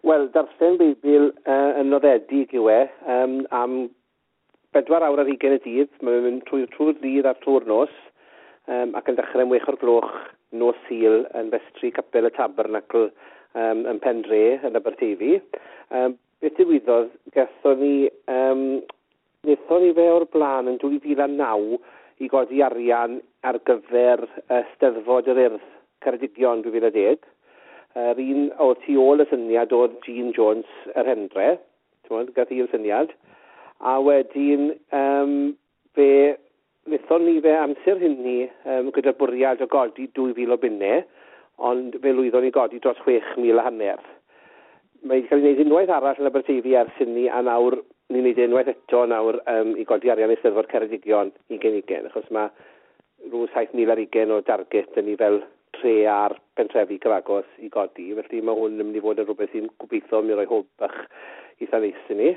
Wel, darllen Beibl yn noddedig yw e, am 24 y dydd. Mae'n mynd trwy'r dydd a trwy'r nos, ac yn dechrau am 6 o'r gloch nos Sul yn festri Capel y Tabernacl yn Pendre yn Aberteifi. Beth ddigwyddodd, wnaethon ni fe o'r blaen yn 2009 i godi arian ar gyfer Steddfod yr Urdd Ceredigion 2010. Yr un oedd tu ôl y syniad oedd Jean Jones yr Hendre, ti'n gath hi'r syniad. A wedyn fe wnaethon ni fe amser hynny gyda'r bwriad o godi 2,000 o bunnau, ond fe lwyddon ni godi dros 6,500. Mae wedi cael ei wneud unwaith arall yn Aberteifi ers hynny, a nawr ni'n wneud e unwaith eto nawr i godi arian Eisteddfod Ceredigion 2020, achos mae rhyw 7,020 o darget yn ni fel tre a'r pentrefi cyfagos i godi, felly mae hwn yn mynd i fod yn rhywbeth sy'n gobeithio mi roi hwb bach eitha neis i ni.